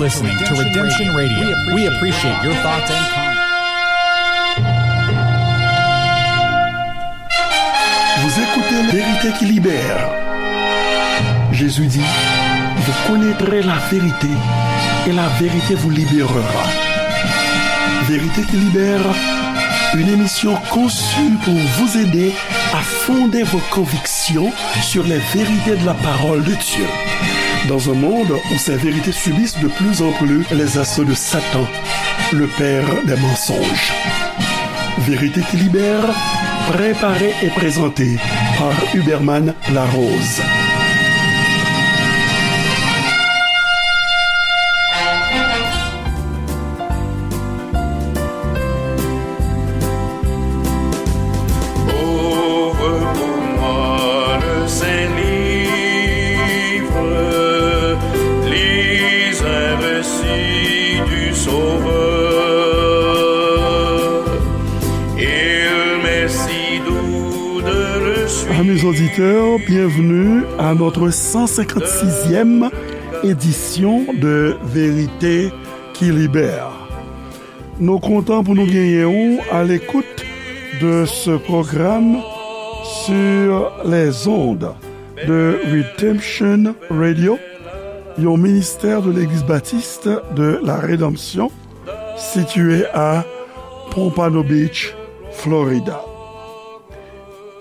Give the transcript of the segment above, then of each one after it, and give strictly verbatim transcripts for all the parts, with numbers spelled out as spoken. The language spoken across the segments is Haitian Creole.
Listening to Redemption Radio. We appreciate your thoughts and comments. Vous écoutez La Vérité qui libère. Jésus dit, vous connaîtrez la vérité et la vérité vous libérera. Vérité qui libère, une émission conçue pour vous aider à fonder vos convictions sur les vérités de la parole de Dieu. Dans un monde où ces vérités subissent de plus en plus les assauts de Satan, le père des mensonges. Vérité qui libère, préparée et présentée par Huberman Larose. Ouvre pour moi le Saint-Livre, lis un récit du Sauveur. Il m'est si doux de le suivre. Amis auditeurs, bienvenue à notre cent cinquante-sixième édition de Vérité qui libère. Nou kontan pou nou genyen ou à l'écoute de ce programme sur les ondes de Redemption Radio, yon ministè de l'Église Baptiste de la Rédemption, situé à Pompano Beach, Florida.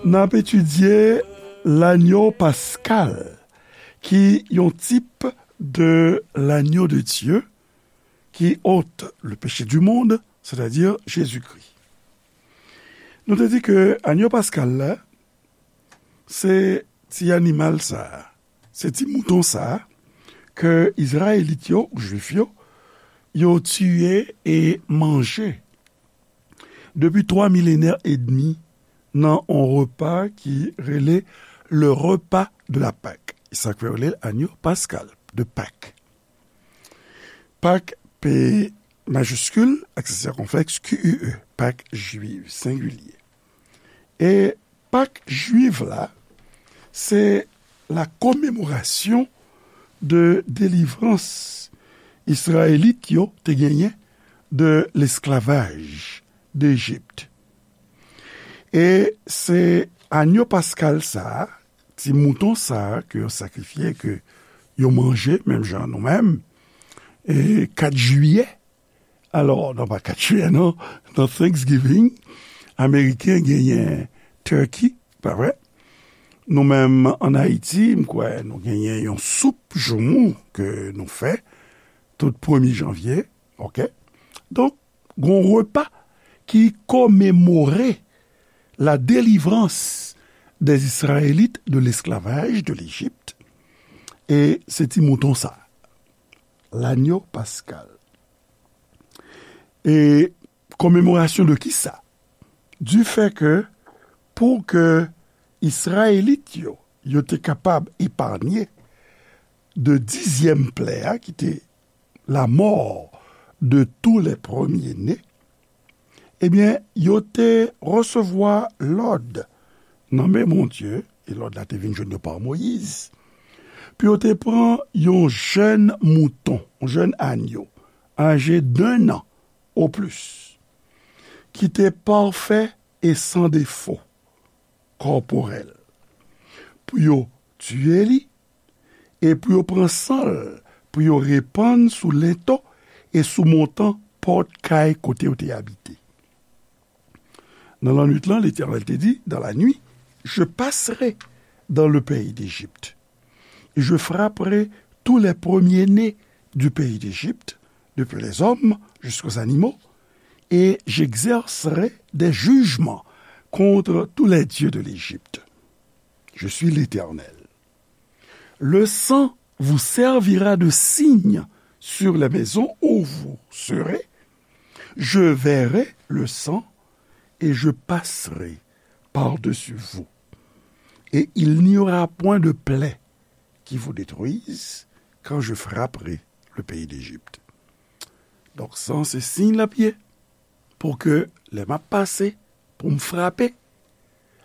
N ap etidye lanyo paskal, ki yon tip de l'agneau de Dieu qui ôte le péché du monde, c'est-à-dire Jésus-Christ. Nou te di ke agneau paskal la, se ti animal sa a, se ti mouton sa a, ke Izrayelit yo, ou Jwif yo, yo tiye e manje depi twa milenè edmi nan yon repa ki rele le repas de la Pâque. E sa k fè yo rele l agneau pascal de Pâques. Pak, P majiskil, aksè sikonflèks, Q U E, Pak jwiv, sengilye. E Pak jwiv la, se la commémoration de délivrance Izrayelit yo te genyen de l'esclavage d'Égypte. E se agneau pascal sa a, ti mouton sa a ke yo sakrifye, ke yo manje, menm jan nou menm, e kat jiyè. Alò, non, pa kat jiyè, non. Nan Thanksgiving, Ameriken genyen turkey, pa vre? Nou menm, ann Ayiti, m kwè, nou genyen yon soup joumou ke nou fè tout premye janvye, oke? Donk, gon repa ki komemore la délivrance des Israélites de l'esclavage de l'Égypte. E se ti mouton sa, l'agneau pascal. E commémoration de kisa? Du fait que, pou ke Izrayelit yo, yo te kapab eparnye de dizyèm plè a, ki te la mort de tous les premiers-nés, ebyen, yo te resevwa lòd nan men Bondye, e lòd la te vin jwenn yo pa Moyiz, pou yo te pran yon jèn mouton, yon jèn agneau, âgé d'un an au plus, ki te pafè e san defo kòporèl, pou yo tiye li, e pou yo pran san l, pou yo repann sou lento e sou montan pòt kay kote yo te abite. Nan lannwit lan, Letènèl te di, dans la nuit, je passerai dans le pays d'Égypte, et je frapperai tous les premiers-nés du pays d'Égypte, depuis les hommes jusqu'aux animaux, et j'exercerai des jugements contre tous les dieux de l'Égypte. Je suis l'Éternel. Le sang vous servira de signe sur les maisons où vous serez. Je verrai le sang et je passerai par-dessus vous. Et il n'y aura point de plaie qui vous détruise quand je frapperai le pays d'Égypte. Donk, san se siy l ap ye, pou ke lè m ap pase, pou m frape,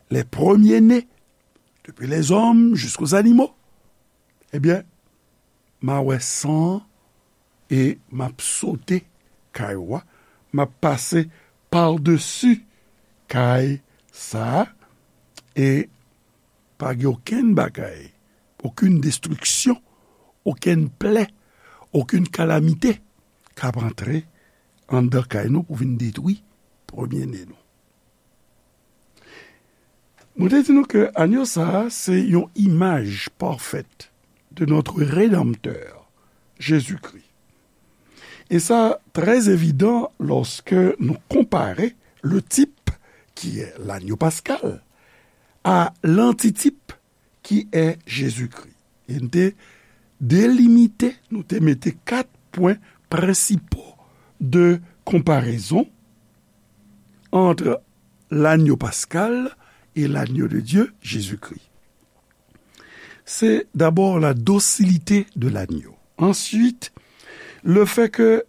les premiers-nés, depuis les hommes jusqu'aux animaux, ebyen, m a wè san e m ap sote kay ou a, m ap pase padesi kay sa a, e pa gen okenn bagay, okenn destriksyon, okenn plè, okenn kalamite k ap antre anndan kay nou pou vin detwi premyene nou. Mwen te di nou ke anyo sa a se yon imaj pafèt de notre Rédempteur, Jésus-Christ. E sa trè evidan lòske nou konpare le type, qui est l'agneau pascal, à l'antitype, qui est Jésus-Christ. E nou te delimite, nou te mete kat pwen prensipal de konparezon entre l'agneau pascal et l'agneau de Dieu, Jésus-Christ. C'est d'abord la docilité de l'agneau. Ensuite, le fait que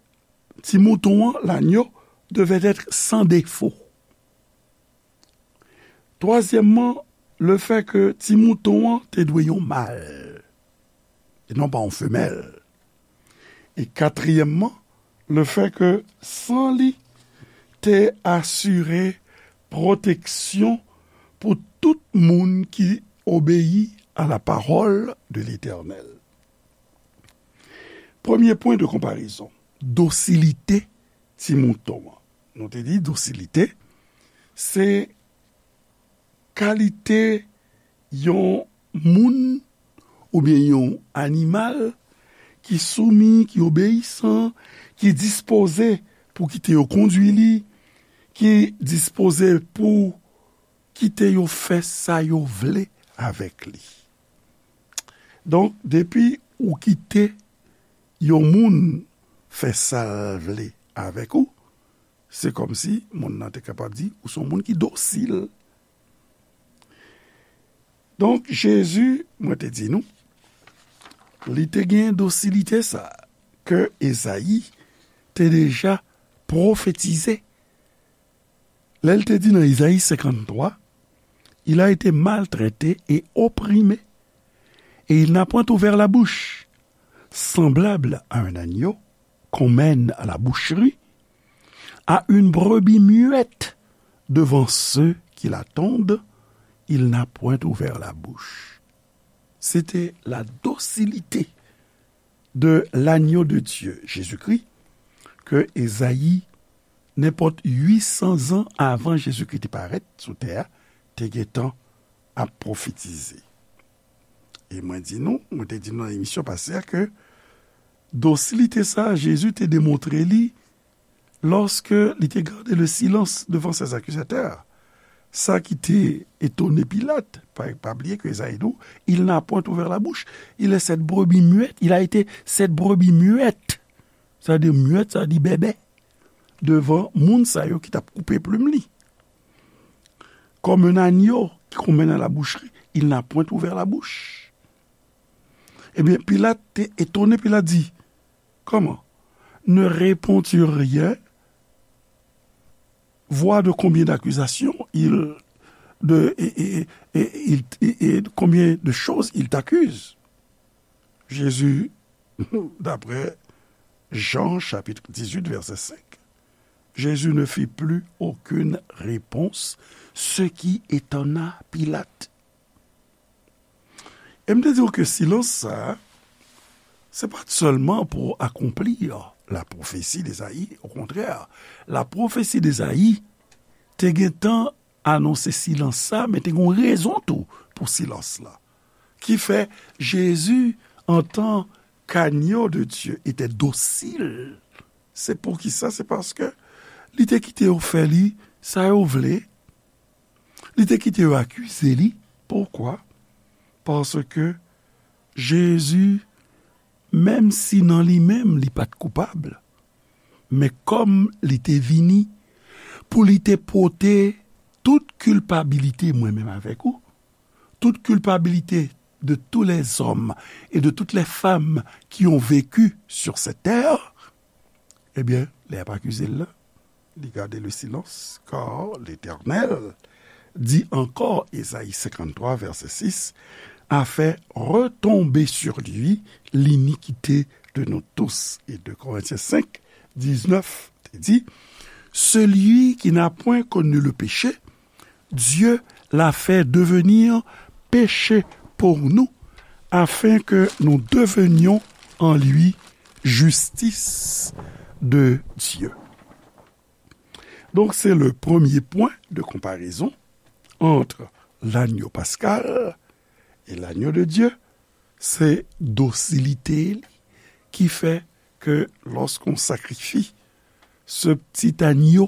ti mouton an, l'agneau, devait être sans défaut. Twazyèmman, le fait que ti mouton an te dwe yon mal, e non pa yon femèl. E katriyèmman, le fait que san li te asire pwoteksyon pou tout moun ki obeyi à la parole de l'Éternel. Premye pwen de konparezon, dosilite ti mouton an. Nou te di dosilite, se kalite yon moun oubyen yon animal ki soumi, ki obeyisan, ki dispoze pou kite yo kondui li, ki dispoze pou kite yo fè sa yo vle avèk li. Donk, depi ou kite yon moun fè sa l vle avèk ou, se kòmsi moun nan te kapab di ou se yon moun ki dosil. Donk, Jezi, mwen te di nou, li te gen dosilite sa a ke Ezayi te deja pwofetize. Lè l te di nan Ezayi senkanntwa, il a été maltraité et opprimé, et il n'a point ouvert la bouche. Semblable à un agneau qu'on mène à la boucherie, à une brebis muette devant ceux qui l'attendent, il n'a point ouvert la bouche. C'était la docilité de l'agneau de Dieu, Jésus-Christ, ke Ezayi, nenpòt uit san zan avan Jezikri te parèt sou tè a, te gentan ap pwofetize. E mwen di nou, mwen te di nou nan emisyon pase a ke dosilite sa a, Jezi te demontre li lòske li te gade le silans devan ses akizatè. Sa ki te etone Pilat, pa, pa bliye ke Ezayi di w, il n'a point ouvert la bouche. Il est cette brebis muette, il a été cette brebis muette. Sa vle di muette, sa vle di bèbè. Devan moun sa yo ki t ap koupe plim li. Comme un agneau qu'on mène à la boucherie, il n'a point ouvert la bouche. Ebyen, Pilat te etone, Pilat di, comment? Ne réponds-tu rien? Vois de combien d'accusations il, de, et, et, et, et il, et, et combien de choses il t'accuse. Jésus, d'après Jean chapitre dix-huit, verset cinq, Jésus ne fit plus aucune réponse, ce qui étonna Pilate. E m te di w ke silans sa a, se pa t sèlman pou akonpli la pwofesi d'Ezayi. Okontrè, la pwofesi d'Ezayi te gentan anonse silans sa, men te gen yon rezon tou pou silans la. Ki fè Jezi, antan k'agneau de Dieu, était docile. Se poukisa? Se paske li te kite yo fè li sa yo vle. Li te kite yo akize li. Poukwa? Paske Jezi, menm si nan li menm li pa t koupab, men kòm li te vini pou li te pote tout kilpabilite mwen menm avèk ou, toute culpabilité de tous les hommes et de toutes les femmes qui ont vécu sur cette terre, ebyen, lè y ap akize l la, li gade le silence, car l'Éternel dit encore, Ésaïe cinquante-trois, verset six, a fait retomber sur lui l'iniquité de nous tous et de Corinthiens cinq, dix-neuf, te di, celui qui n'a point connu le péché, Dieu l'a fait devenir péché pour nous, afin que nous devenions en lui justice de Dieu. Donc, c'est le premier point de comparaison entre l'agneau pascal et l'agneau de Dieu. Se dosilite li ki fè ke lòske w sakrifye se ptit anyo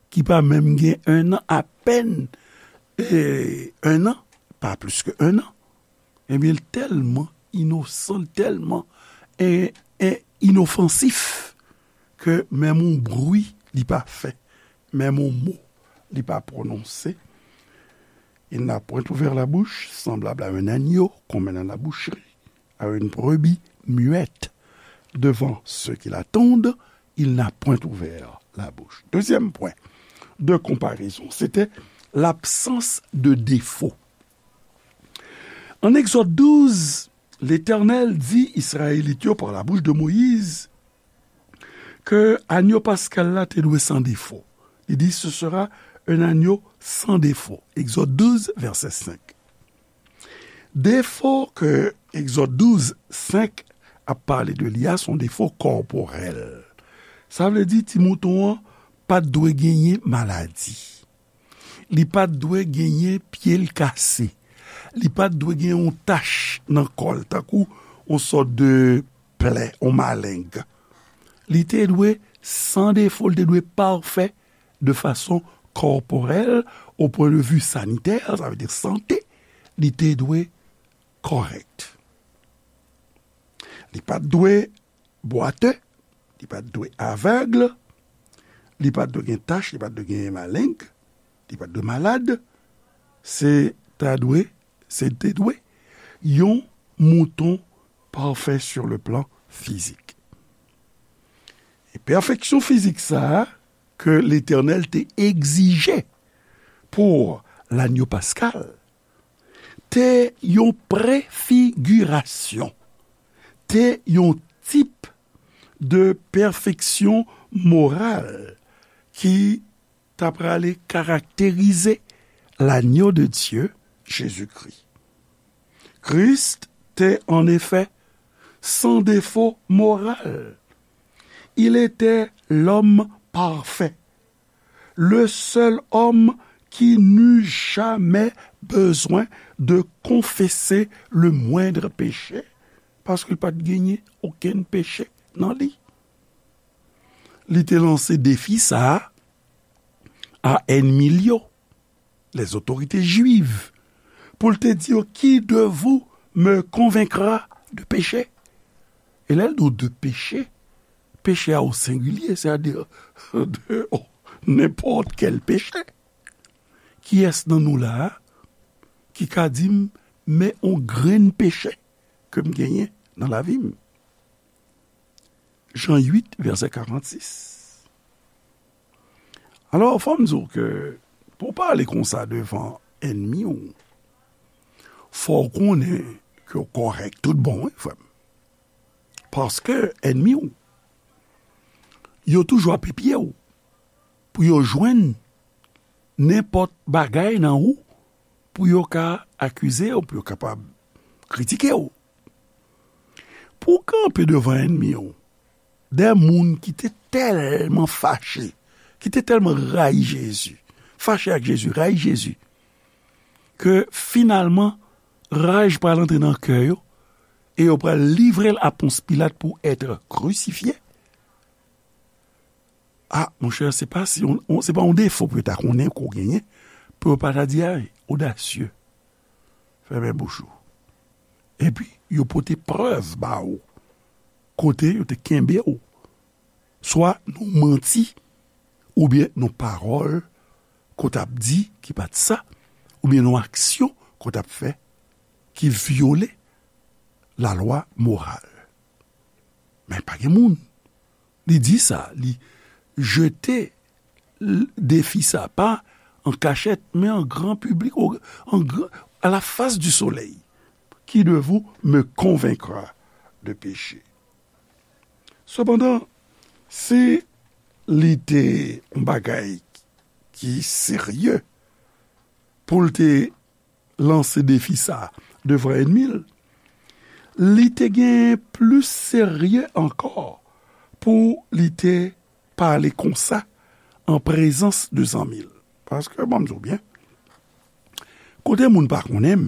ki pa menm gen un an, apèn, e, un an, pa plis ke un an, ebyen, l tèlman inosan, l tèlman, e, e, inofansif ke menm yon bri li pa fè, menm yon mo li pa pwononse. Il n'a point ouvert la bouche, semblable à un agneau qu'on mène à la boucherie, à une brebis muette. Devant ceux qui l'attendent, il n'a point ouvert la bouche. Deuxième point de comparaison, c'était l'absence de défaut. An Egzòd douz, Letènèl di Izrayelit yo pa la bouch de Moyiz ke anyo paskal la te dwe san defo. Li di, ce sera un agneau sans défaut. Egzòd douz, vèsè senk. Defo ke Egzòd douz, senk ap pale de li a, se yon defo kòporèl. Sa vle di, ti mouton an pa t dwe genyen maladi. Li pa t dwe genyen pye l kase. Li pa t dwe gen yon tach nan kò l, tankou yon sòt de plè, yon maleng. Li te dwe san defo, li te dwe pafè de fason kòporèl, au point de vue sanitaire, sa vle di sante, li te dwe kòrèk. Li pa t dwe bwate, li pa t dwe avèg, li pa t dwe gen tach, li pa t dwe gen maleng, li pa t dwe malad. Se ta dwe, se te dwe yon mouton pafè sur le plan fizik. E pèfeksyon fizik sa a ke Letènèl te egzije pou lanyo paskal, te yon prefigirasyon, te yon tip de pèfeksyon moral ki ta prale karakterize lanyo de Dye, Jezikri. Christ était en effet sans défaut moral. Il était l'homme parfait, le seul homme qui n'eut jamais besoin de confesser le moindre péché, paske l pa t genyen okenn peche nan li. Li te lanse defi sa a a ènmi l yo, les autorités juives, pou l te di yo, qui de vous me convaincra de péché? E lè l di w de péché, péché a o sengilye, sètadi de nenpòt kèl peche. Kiyès nan nou la a ki ka di m, men yon grenn peche ke m genyen nan lavi m? Jan uit, vèsè karannsis. Alò, fò m di w ke pou w pale konsa devan ènmi w, fò w konnen ke w kòrèk tout bon, wi, frè m. Paske ènmi w yo toujou ap epye w pou yo jwenn nenpòt bagay nan ou pou yo ka akize w, pou yo kapab kritike w. Pou w kanpe devan ènmi w, de moun ki te tèlman fache, ki te tèlman rayi Jezi, fache ak Jezi, rayi Jezi, ke finalman raj pral antre nan kè yo e yo pral livre l a Pons Pilat pou être crucifié. A, monchè, se pa si on, on, se pa yon defo pou yo ta konnen ke w genyen, pou yo pa ta di, ay, odasye, fèmen bouch ou. Epi, yo pote prèv ba ou, kote yo te kenbe w, swa nan manti, oubyen nan pawòl ke w t ap di ki pa t sa, oubyen nan aksyon ke w t ap fè ki vyole lalwa moral. Men pa gen moun. Li di sa, li jete l-, defi sa, pa an kachèt, men an gran piblik, o, an gran, à la face du soleil. Qui de vous me convaincra de péché? Sepandan, si li te yon bagay ki serye pou l te lanse defi sa a devan ènmi l, li te gen plis serye ankò pou li te pale konsa an prezans de zanmi l. Paske, ban m di w byen, kote moun pa konnen m,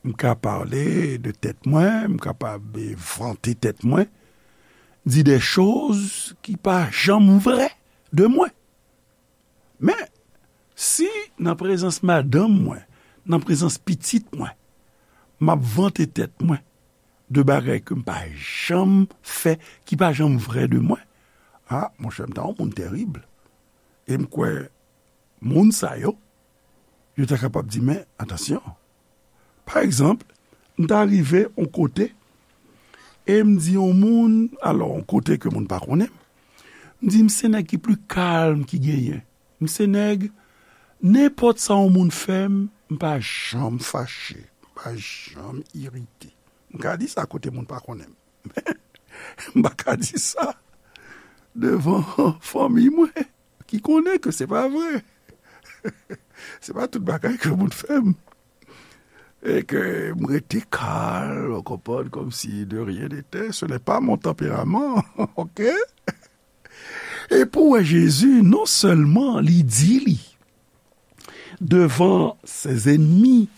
m ka pale de tèt mwen, m kapab vante tèt mwen, di de choz ki pa janm vrè de mwen. Men, si nan prezans madanm mwen, nan prezans pitit mwen, m ap vante tèt mwen de bagay ke m pa janm fè, ki pa janm vrè de mwen, a, monchè, m ta yon moun terib. E m kwè, moun sa yo, yo ta kapab di, men, atansyon. Pa egzanp, m ta rive yon kote, e m di yon moun, alò, yon kote ke moun pa konnen m, m di, m se nèg ki pli kalm ki genyen. M se nèg, nenpòt sa yon moun fè m, m pa janm fache, m pa janm irite. M ka di sa kote moun pa konnen m. M pa ka di sa devan fanmi mwen, ki konnen ke se pa vre. Se pa tout bagay ke moun fè m. E ke m rete kalm, w konprann, comme si de rien n'était. Ce n'est pas mon tempérament, ok? E pou w wè Jezi, non sèlman li di li devan ses ennemis,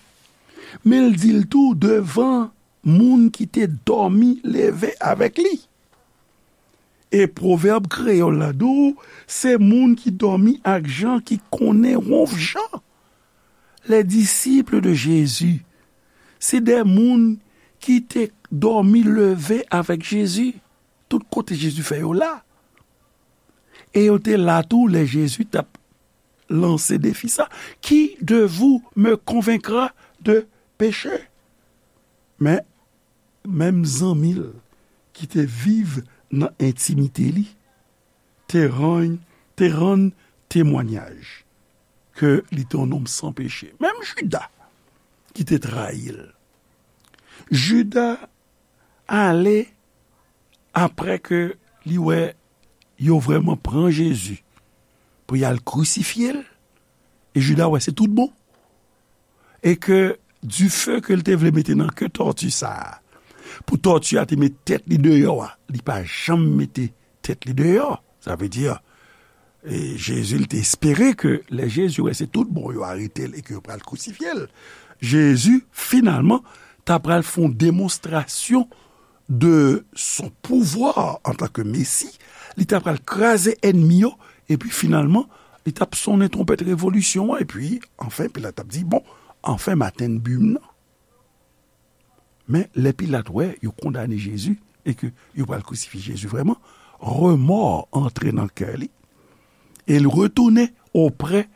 men l di l tou devan moun ki te dòmi leve avèk li. E pwovèb kreyòl la di w, se moun ki dòmi ak Jan ki konnen wonf Jan. Les disciples de Jésus, se de moun ki te dòmi leve avèk Jezi. Tout kote Jezi fè yo la. E yo te la tou lè Jezi t ap lanse defi sa, qui de vous me convaincra de péché? Men, menm zanmi l ki te viv nan entimite li, te rann, te rann temwanyaj ke li te yon nonm san peche. Menm Jida ki te trayi l. Jida ale apre ke li wè yo vrèman pran Jezi pou y al krisifye l, e Jida wè se tout bon. E ke dife ke l te vle mete nan ke tòti sa a, pou tòti a te met tèt li deyò a, li pa janm mete tèt li deyò. Sa vle di, e Jezi, li te espere ke lè Jezi wè se tout bon, yo arete l e ke yo pral krisifye l. Jezi, finalman, ta pral fè yon demonstrasyon de son pouvwa antanke Mesi. Li ta pral kraze ènmi yo, epi finalman, li t ap sonnen twonpèt revolisyon an, epi, anfen, Pilat ap di, bon, anfen, m atenn bi m nan. Men, lè Pilat wè yo kondane Jezi e ke yo pral krisifye Jezi vrèman, remò antre nan kè li, e l retounen oprè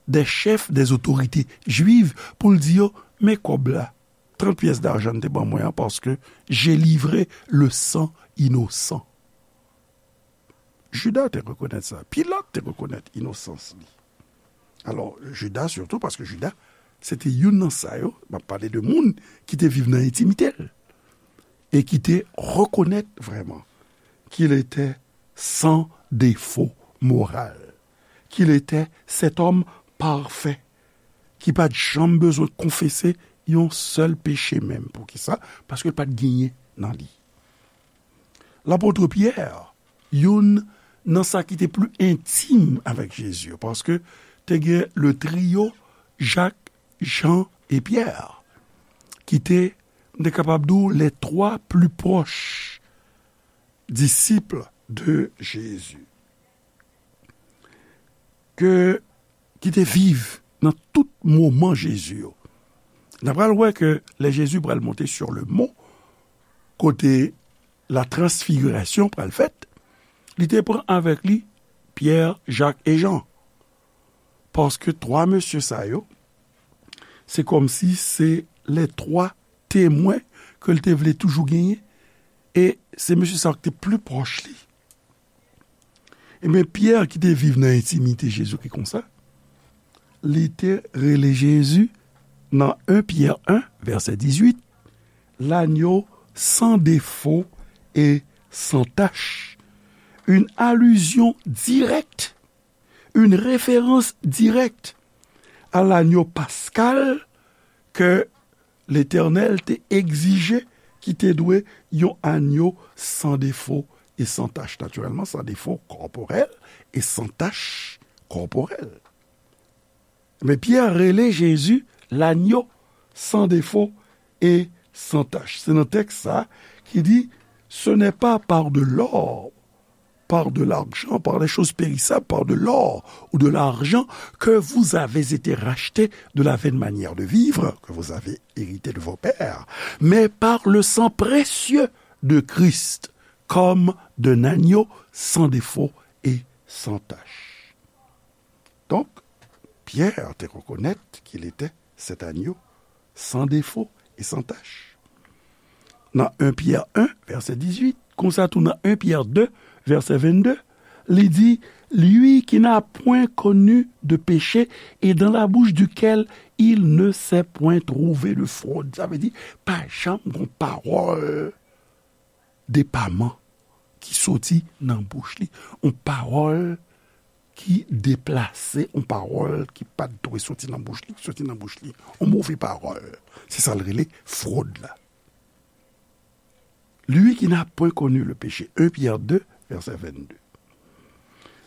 des chefs, des autorités juives, pou l di yo, men kòb la, trant pyès dajan n te ban mwen an, paske j'ai livré le sang innocent. Jida te rekonèt sa. Pilat te rekonèt inosans li. Alò, Jida sitou, paske Jida, se te youn nan sa yo, m ap pale de moun ki te viv nan entimite l, e ki te rekonèt vrèman qu'il était sans défaut moral, qu'il était cet homme parfait, ki pa t janm bezwen konfese yon sèl peche menm. Poukisa? Paske l pa t genyen nan li. Lapot Pyè, youn nan sa ki te pli entim avèk Jezi yo, paske te gen le trio Jak, Jan e Pyè, ki te, m te kapab di w, les trois plus proches disciples de Jésus, ke, ki te viv nan tout moman Jezi yo. N a pral wè ke lè Jezi pral monte sur le mont, kote la transfigurasyon pral fèt, li te pran avèk li Pyè, Jak e Jan. Paske twa mesye sa yo, se kòmsi se les trois témoins ke l te vle toujou genyen, e se mesye sa yo ki te pli pwòch li. Ebyen, Pyè ki te viv nan entimite Jezikri konsa, li te rele Jezi nan en Pyè en, vèsè dizuit, l'agneau sans défaut et sans tache, une allusion directe, une référence directe à l'agneau pascal ke Letènèl te egzije, ki te dwe yon anyo san defo e san tach. Natirèlman, san defo kòporèl e san tach kòporèl. Men Pyè rele Jezi lanyo san defo e san tach. Se nan tèks sa ki di, ce n'est pas par de l'or, par de l'argent, par des choses périssables, par de l'or ou de l'argent que vous avez été rachetés de la vaine manière de vivre que vous avez hérité de vos pères, mais par le sang précieux de Christ, comme d'un agneau sans défaut et sans tache. Donk, Pyè te rekonèt ke li te se agneau sans défaut et sans tache. Nan en Pyè en, vèsè dizuit, konsa tou nan en Pyè de, vèsè vennde, li di, lui qui n'a point connu de péché et dans la bouche duquel il ne s'est point trouvé de fraude. Sa vle di, pa janm gon pawòl depaman ki soti nan bouch li. Yon pawòl ki deplase, yon pawòl ki pa t dwe soti nan bouch li, ki soti nan bouch li. Yon move pawòl. Se sa l rele frod la. Lui qui n'a point connu le péché. En Pyè de, vèsè vennde.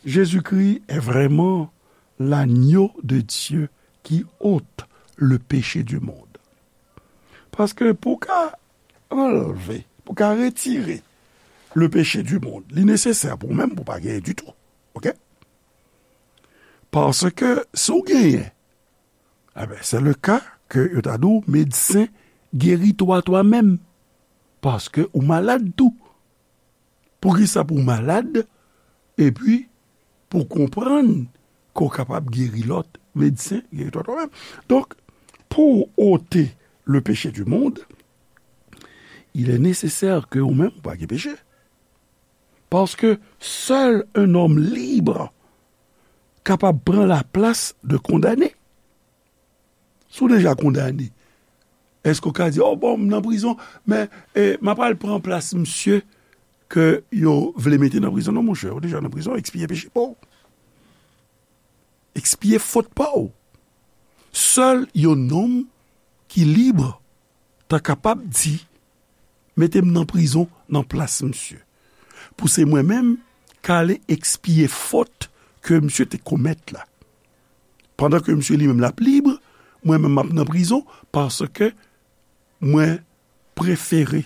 Jésus-Christ est vraiment l'agneau de Dieu qui ôte le péché du monde. Paske pou ka anlve, pou ka retire le péché du monde, li nesesè pou ou menm pou pa genyen ditou. Oke? Paske si w genyen, enben, se le ka ke yo ta di w, medsen, geri twa twa menm. Paske ou malad tou. Poukisa pou w malad, epi pou w konprann ke w kapab geri lòt, medsen, geri twa twa menm. Donk, pou w ote le péché du monde, il est nécessaire ke ou menm ou pa gen peche. Paske sèl un homme libre kapab pran laplas de kondane. Si w deja kondane, èske w ka di, "O, bon, m nan prizon, men, e, m ap al pran plas misye ke yo vle mete nan prizon"? Non, monchè, ou deja nan prizon, ekspye peche pa w. Ekspye fot pa w. Sèl yon nonm ki lib ta kapab di, "Mete m nan prizon nan plas misye." Pou se mwen menm k ale ekspye fot ke misye te komèt la. Pandan ke misye li menm l ap lib, mwen menm m ap nan prizon paske mwen prefere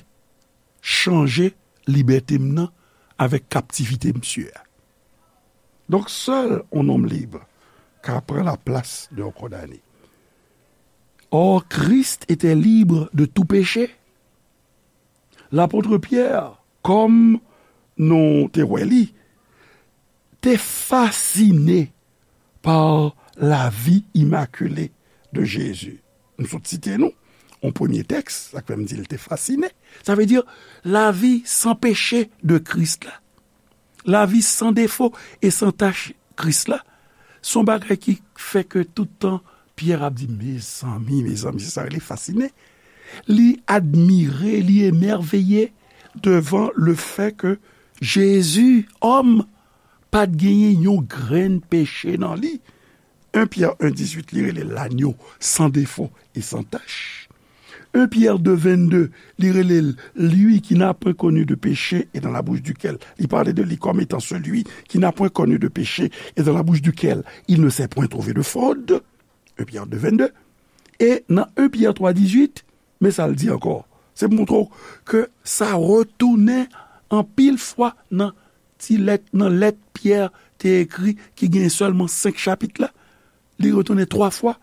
chanje libète m nan avèk kaptivite misye a. Donk, sèl yon nonm lib ka pran laplas de yon kondane. Or, Christ était libre de tout péché. Lapot Pyè, kòm nou te wè li, te fasine pa lavi imakile de Jezi. M sot site nou yon premye tèks, sa k fè m di l te fasine. Sa vle di lavi san peche de Kris la. Lavi san defo e san tach Kris la. Se yon bagay ki fè ke tout tan Pyè ap di, "Mezanmi, mezanmi," se sa rele fasine. Li admire, li emèveye devan le fè ke Jezi, òm, pa t genyen yon grenn peche nan li. En Pyè en dizuit, li rele l lanyo san defo e san tach. En Pyè de vennde, li rele l, lui qui n'a point connu de péché et dans la bouche duquel, li pale de li kòm etan celui qui n'a point connu de péché et dans la bouche duquel il ne s'est point trouvé de fraude. En Pyè de vennde. E nan en Pyè twa dizuit, men sa l di ankò. Se pou montre w ke sa retounen anpil fwa nan ti lèt, nan lèt Pyè te ekri ki gen sèlman senk chapit la. Li retounen twa fwa.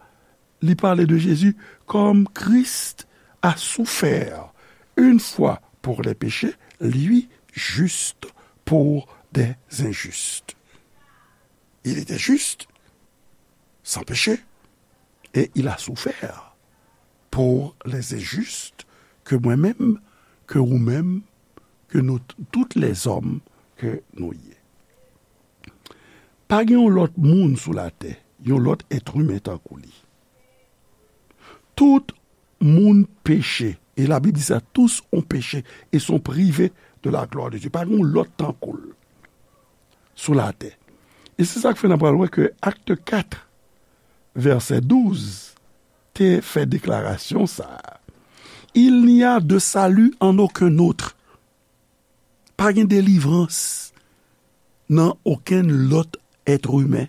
Li pale de Jezi kòm Christ a souffert une fois pour les péchés, lui juste pour des injustes. Il était juste, sans péché, et il a souffert pour les injustes, ke mwen menm, ke ou menm, ke nou t-, tout lèzòm ke nou ye. Pa gen yon lòt moun sou latè, yon lòt èt imen tankou li. Tout moun peche, et la Bible dit ça, tous ont péché et sont privés de la gloire de Dieu. Pa gen yon lòt tankou l sou latè. E se sa k fè n ap pral wè ke Acte quatre, verset douze, te fè deklarasyon sa a. Il n'y a de salut en aucun autre. Pa gen delivrans nan okenn lòt être humain,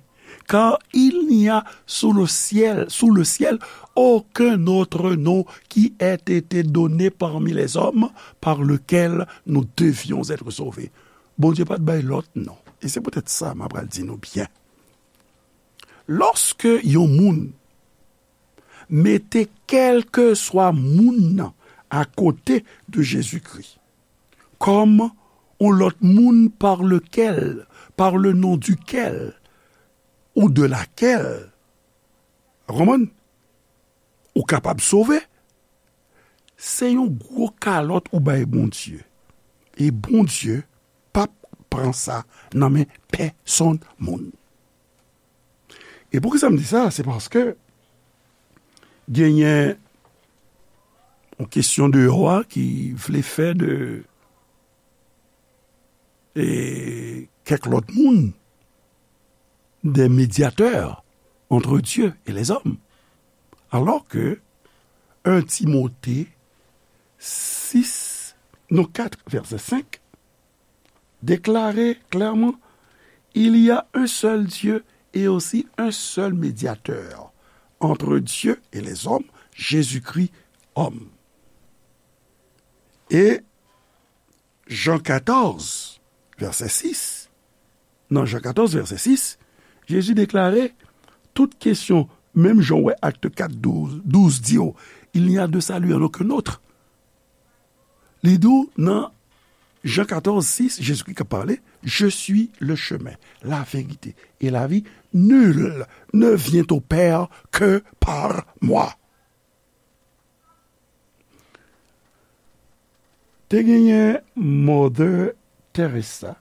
car il n'y a sous le ciel, sous le ciel, aucun autre nom qui ait été donné parmi les hommes par lequel nous devions être sauvés. Bondye pa t bay lòt non. E se poutèt sa m ap pral di nou byen. Lòske yon moun mete kèlkeswa moun nan akote de Jezikri, kòm yon lòt moun par lequel, par le nom duquel, ou de laquelle, ou konprann? Ou kapab sove, se yon gwo kalòt ou bay Bondye. E Bondye p ap pran sa nan men pèsonn moun. E poukisa m di sa? Se paske genyen yon kesyon deyò a ki vle fè de, e, kèk lòt moun des médiateurs entre Dieu et les hommes. Alors que un Timothée six, non, quatre, verset cinq, déclarait clairement, il y a un seul Dieu et aussi un seul médiateur entre Dieu et les hommes, Jésus-Christ homme. Et Jean quatorze, verset six, nan Jean quatorze, verset six, Jezi deklare tout kesyon, menm jan w wè Acte quatre, douze, douze di w, il n'y a de salut en aucun autre. Li di w nan Jean quatorze, six, Jezikri k ap pale, je suis le chemin, la vérité et la vie, nul ne vient au Père que par moi. Te genyen Mother Teresa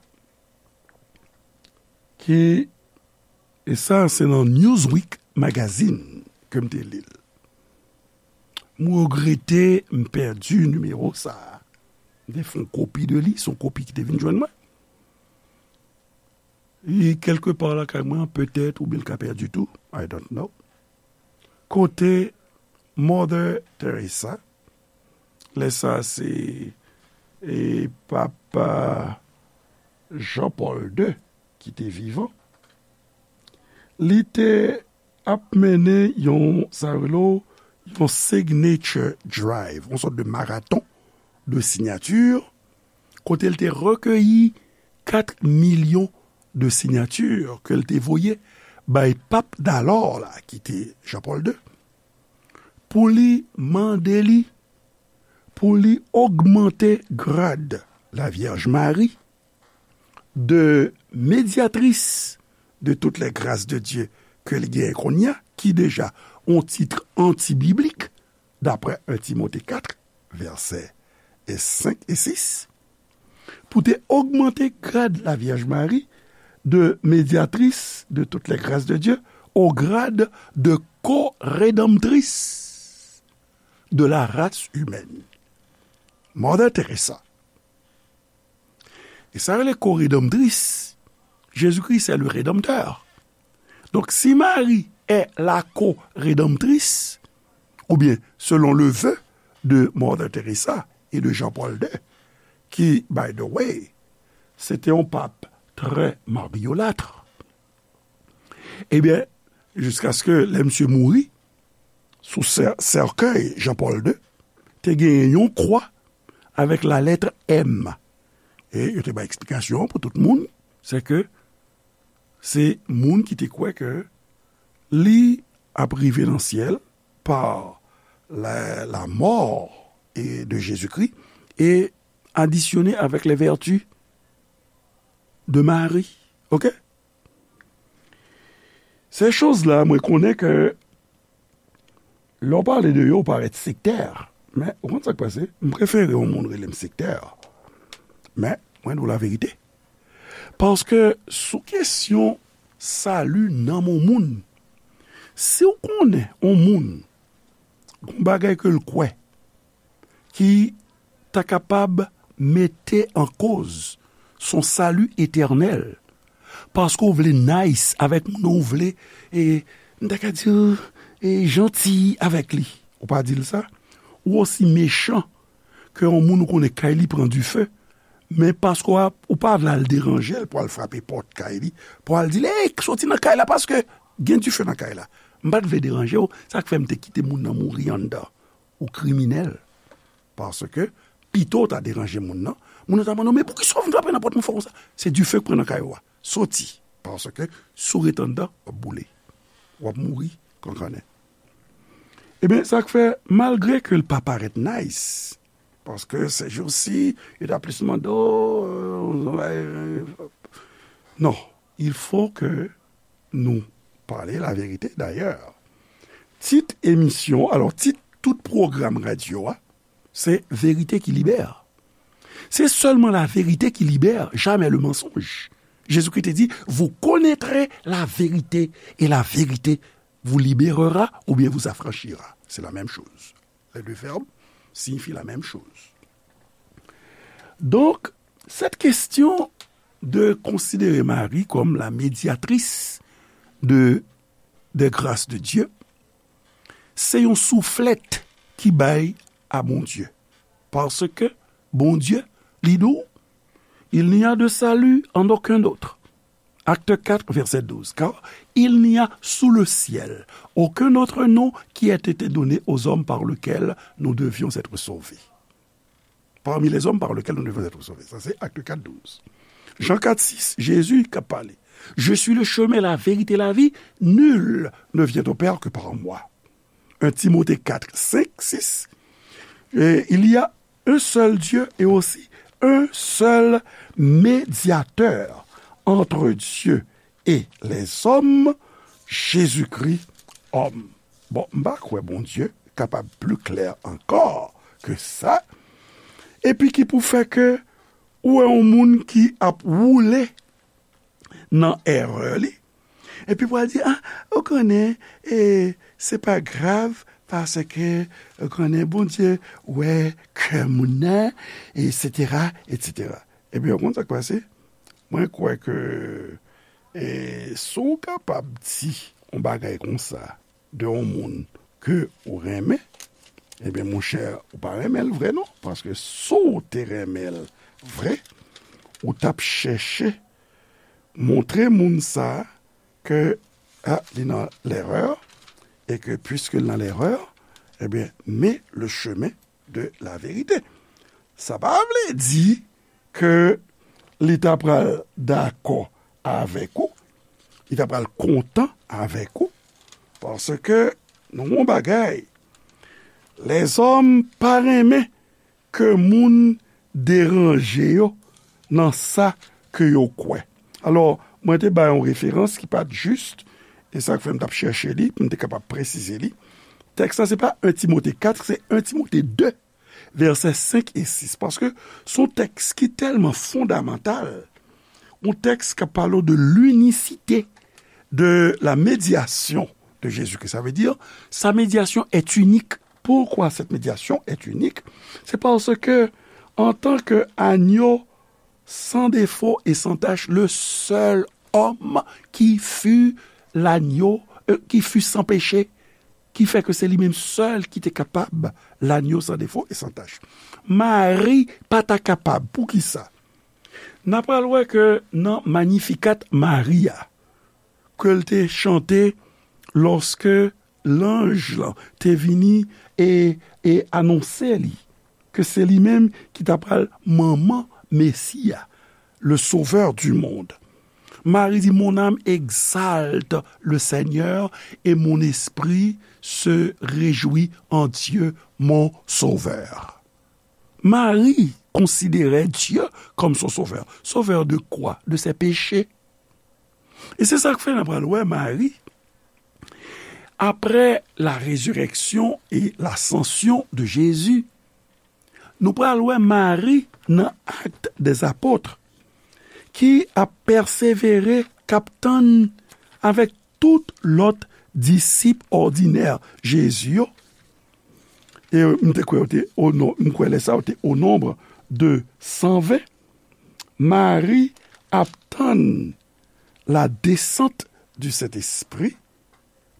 ki, e sa se nan Newsweek Magazine ke m te li l. M regrete m pèdi nimewo sa a. M te fè yon kopi de li, se yon kopi ki te vin jwenn mwen. Li kèlke pa lakay mwen, petèt, oubyen l ka pèdi tou. I don't know. Kote Mother Teresa, lè sa se, e, Papa Jean Paul deux ki te vivan, li te ap mennen yon, sa yo rele yon signature drive, yon sòt de maraton de sinyati, kote l te rekeyi kat milyon de sinyati ke l te voye bay pap dalò la, ki te Jean Paul deux, pou li mande li, pou li ogmante grad Lavyèj Mari de medyatris de toutes les grâces de Dieu ke li genyen kounye a, ki deja yon tit antibiblik, daprè un Timote kat, vèsè senk e sis, pou te ogmante grad Lavyèj Mari de medyatris de toutes les grâces de Dieu au grade de co-rédemptrice de la race humaine. Mother Teresa. E sa rele co-rédemptrice, Jésus-Christ c'est le Rédempteur. Donc, si Marie est la co-rédemptrice, ou bien selon le vœu de Mother Teresa et de Jean-Paul deux, qui, by the way, c'était un pape très mariolâtre, ebyen, jiskaske lè misye mouri, sou sè-, sèkèy Jean Paul deux, te genyen yon kwa avèk la lettre M. E yo te bay eksplikasyon pou tout moun, se ke se moun ki te kwè ke li ap rive nan syèl pa la, la mort et de Jésus-Christ et additionné avec les vertus de Marie. OK? Se choz la, mwen konnen ke lè w pale de yo, ou parèt sektè. Men, ou konn sa k pase? M prefere yon moun rele m sektè. Men, mwen di w laverite. Paske sou kesyon sali nanm yon moun, si w konnen yon moun, gon bagay ke l kwè, ki ta kapab mete an koz son sali etènèl, paske w vle nice avèk moun nan, w vle, e, m ta ka di, e, janti avèk li. Ou pa di l sa? Ou osi mechan ke yon moun ou konnen kay li pran dife, men paske w ap, ou pa vle al deranje l pou al frape pòt kay li, pou al di l, "Ey, soti nan kay la paske gen dife nan kay la." M pa t vle deranje w, sa k fè m te kite moun nan mouri anndan. Ou kriminèl. Paske, pito w ta deranje moun nan, moun nan ta mande w, "Men poukisa w vin frape nan pòt mwen fò konsa?" Se dife k pran nan kay ou a. Soti. Paske, si w ret anndan, w ap boule. W ap mouri kankannen. Ebyen, sa k fè, malgre ke l pa parèt nice, paske se jou si, yo ta plis mande w, euh, euh, non, il faut que nous parler la vérité. D'ailleurs, tit emisyon, alò, tit tout pwogram radyo a, se Verite ki libère. C'est seulement la vérité qui libère, jamais le mensonge. Jésus-Christ te di, "Vous connaîtrez la vérité, et la vérité vous libérera ou bien vous affranchira." C'est la même chose. Les deux verbes signifient la même chose. Donc, cette question de considérer Marie comme la médiatrice de, des grâces de Dieu, se yon souflèt ki bay a Bondye. Paske Bondye, li di w, "Il n'y a de salut en aucun autre." Acte quatre, verset douze. Car il n'y a sous le ciel aucun autre nom qui ait été donné aux hommes par lequel nous devions être sauvés. Parmi les hommes par lequel nous devions être sauvés. Sa se Acte quatre, douze. Jean quatre, six, Jésus k ap pale. "Je suis le chemin, la vérité, la vie. Nul ne vient au Père que par moi." Un Timothée quatre, cinq, six. Et il y a un seul Dieu et aussi un seul médiateur entre Dieu et les hommes, Jésus-Christ, homme. Bon, m pa kwè Bondye kapab pli klè ankò ke sa. Epi ki pou fè ke ou wè yon moun ki ap woule nan erè li. Epi pou al di, "Ah, ou konnen, e, se pa grav, paske, ou konnen, Bondye wè kè moun nan, etsetera, etsetera." Ebyen, ou konn sa k pase? Mwen kwè ke, e, si w kapab di yon bagay konsa de yon moun ke ou renmen, ebyen, monchè, ou pa renmen l vre non, paske si w te renmen l vre, ou t ap chèche montre moun sa a ke, a, li nan lerè, e ke piske l nan lerè, ebyen, mais le chemin de la vérité. Sa pa vle di ke li ta pral dakò avèk ou, li ta pral kontan avèk ou, paske nou yon bagay, lèzòm pa renmen ke moun deranje yo nan sa ke yo kwè. Alò, mwen te bay yon referans ki pa t jis, e sa k fè m t ap chèche li, pou m te kapab presize li. Tèks la, se pa en Timote kat, se en Timote de, vèsè senk e sis, paske se yon tèks ki tèlman fondamantal, yon tèks k ap pale de l'unicité de la médiation de Jésus-Christ. Sa vle di, sa médiation est unique. Pourquoi cette médiation est unique? C'est parce que, en tant que agneau sans défaut et sans tache, le seul homme qui fut l'agneau, euh, qui fut sans péché, ki fè ke se li menm sèl ki te kapab, l'agneau sans défaut et sans tache. Mari pa ta kapab. Poukisa? N a pral wè ke nan Magnificat Maria, ke l te chante lòske lanj lan te vini e, e anonse li ke se li menm ki ta pral manman Mesi a, le Sauveur du monde. Mari di, mon âme exalte le Seigneur et mon esprit se réjouit en Dieu, mon Sauveur. Mari konsidere Dye kòm son sovè. Sovè de kwa? De se peche. E se sa k fè n ap pral wè Mari, après la résurrection et l'ascension de Jésus, nou pral wè Mari nan Actes des Apôtres, ki ap pèsevere, k ap tann avèk tout lòt disip òdinè Jezi yo. E m te kwè yo te o non-, m kwè lè sa yo te au nombre de san ven, Mari ap tann la descente du Saint-Esprit,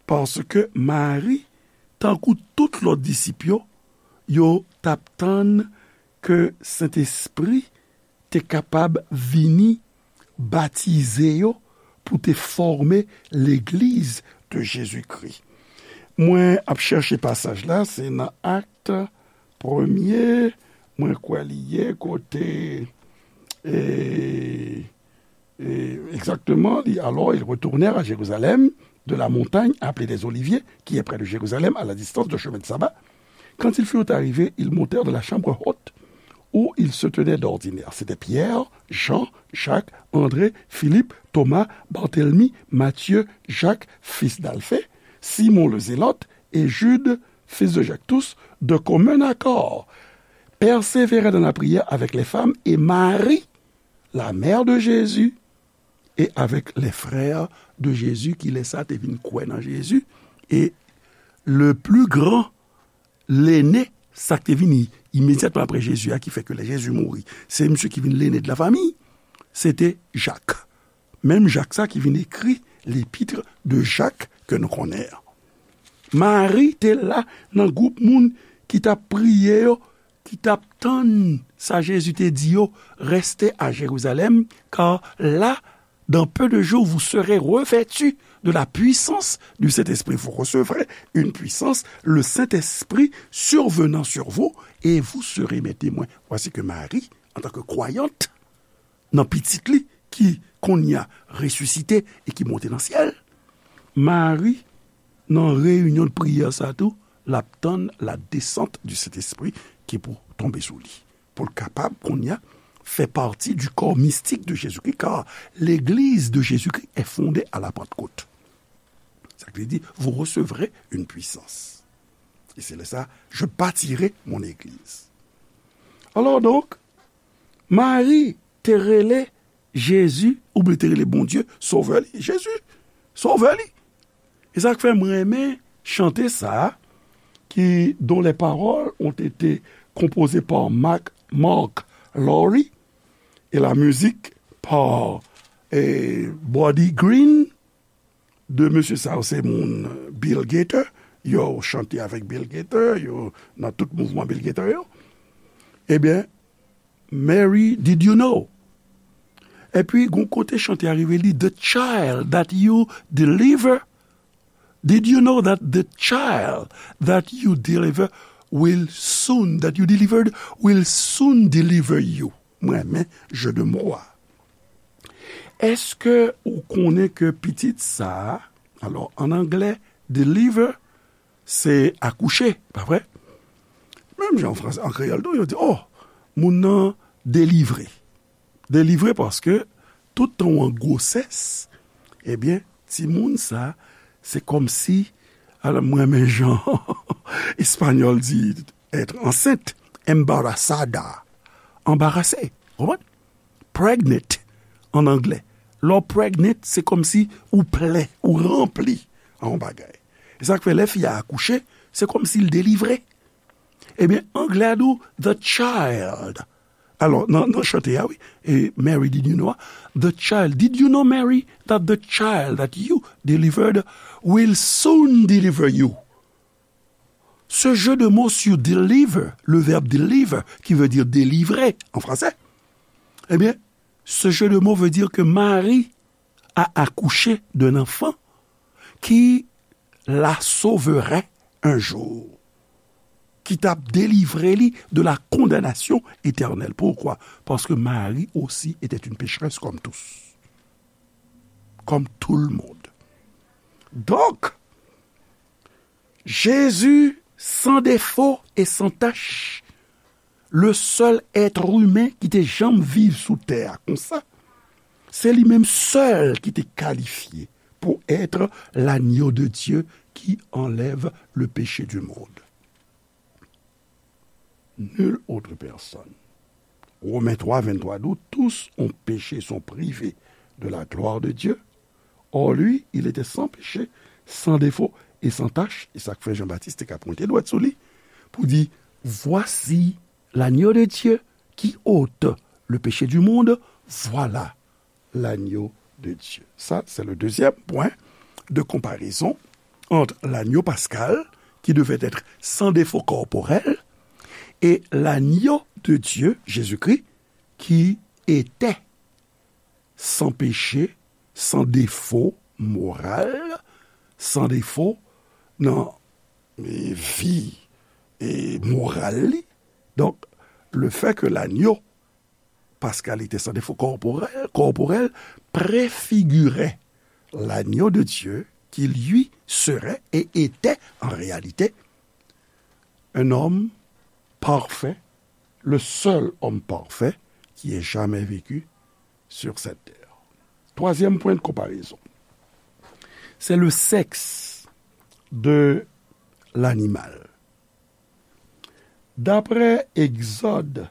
paske Mari, tankou tout lòt disip yo, yo t ap tann ke Sentespri te kapab vini batize yo pou te fòme legliz de Jezikri. Mwen ap chèche pasaj la, se nan Akt premye, mwen kwè li ye kote, e, e, egzakteman, li, alors ils retournèrent à Jérusalem, de la montagne appelée des Oliviers, qui est près de Jérusalem, à la distance d'un chemin de sabbat. Quand ils furent arrivés, ils montèrent dans la chambre haute où ils se tenaient d'ordinaire. C'étaient Pierre, Jean, Jacques, André, Philippe, Thomas, Barthélemy, Matthieu, Jacques, fils d'Alphée, Simon le Zélote et Jude, fils de Jacques. Tous, de commun accord, persévéraient dans la prière avec les femmes et Marie, la mère de Jésus, et avec les frères de Jésus, ki lè sa te vin kwè nan Jezi. E le plus grand, lene, sa k te vini imedyatman apre Jezi a, ki fè ke lè Jezi mouri, se misye ki vin lene de la famiy, se te Jak. Menm Jak sa ki vin ekri l'épître de Jacques ke nou konnen an. Mari te la nan gwoup moun ki t ap priye yo, ki t ap tann sa Jezi te di yo, restez à Jérusalem, car là, dans peu de jours, vous serez revêtus de la puissance du Saint-Esprit. Vous recevrez une puissance, le Saint-Esprit survenant sur vous, et vous serez mes témoins. Voici que Marie, en tant que croyante, nan pitit li ki kounye a resisite e ki monte nan syèl, Mari, nan reyinyon de priyè sa tou, l ap tann la descente du Saint-Esprit ki pou tonbe sou li, pou l kapab kounye a fè pati du corps mystique de Jésus-Christ, car l'Église de Jésus-Christ est fondée à la Pentecôte. Sa vle di, vous recevrez une puissance. Et c'est là ça, je bâtirai mon église. Alors donc, Mari te rele Jezi, oubyen te rele Bondye, Sovè li, Jezi, Sovè li. E sa k fè mwen renmen chante sa, qui, dont les paroles ont été composées par Mark, Mark Lowry et la musique par eh, Buddy Green, de mesye sa yo se moun Bill Gaither, yo chante avèk Bill Gaither, yo nan tout mouvman Bill Gaither yo. Ebyen, Mary, did you know? Epi, gon kote chante a rive li, the child that you deliver, did you know that the child that you deliver will soon, that you delivered will soon deliver you? Mwen renmen jeu de mots a. Èske ou konnen ke pitit sa a, alò, an anglè, deliver, se akouche, pa vre? Menm jan an fransè, an kreyòl tou, yo di, oh, moun nan delivre. Delivre paske tout tan w an gwosès, ebyen, timoun sa, se kòmsi, alò, mwen renmen jan espanyòl di être enceinte, embarazada, anbarase, konprann? Pregnant, an anglè. Lè w pregnant, se kòmsi ou plen, ou ranpli an yon bagay. E sa k fè lè fi a akouche, se kòmsi l delivre. Ebyen, anglè a di w, the child. Alò, nan, nan chante a, wi, e Mary, did you know? The child, did you know, Mary, that the child that you delivered will soon deliver you? Ce jeu de mots sur deliver, le verbe deliver, qui veut dire délivrer en français, eh bien, ce jeu de mots veut dire que Marie a accouché d'un enfant qui la sauverait un jour, ki t ap delivre li de la condamnation éternelle. Pourquoi? Parce que Marie aussi était une pécheresse comme tous. Comme tout le monde. Donc, Jésus, sans défaut et sans tache, le seul être humain ki te janm viv sou tè a konsa, se li menm sèl ki te kalifye pour être l'agneau de Dieu qui enlève le péché du monde. Nulle autre personne. Romains trois, vingt-trois, d'où tous ont péché, sont privés de la gloire de Dieu. Or, lui, il était sans péché, sans défaut et sans tache. E sa k fè Jean-Baptiste te ka pwente dwèt sou li pou di, voici l'agneau de Dieu qui ôte le péché du monde, voilà l'agneau de Dieu. Ça, c'est le deuxième point de comparaison entre l'agneau pascal, qui devait être sans défaut corporel, et l'agneau de Dieu, Jésus-Christ, qui était sans péché, sans défaut moral, sans défaut nan, e, vi, e, moral li. Donk, le fait que l'agneau pascal était sans défaut corporel, corporel préfigurait l'agneau de Dieu qui, lui, serait et était en réalité un homme parfait, le seul homme parfait qui ait jamais vécu sur cette terre. Troisième point de comparaison, c'est le sexe de l'animal. D'après Exode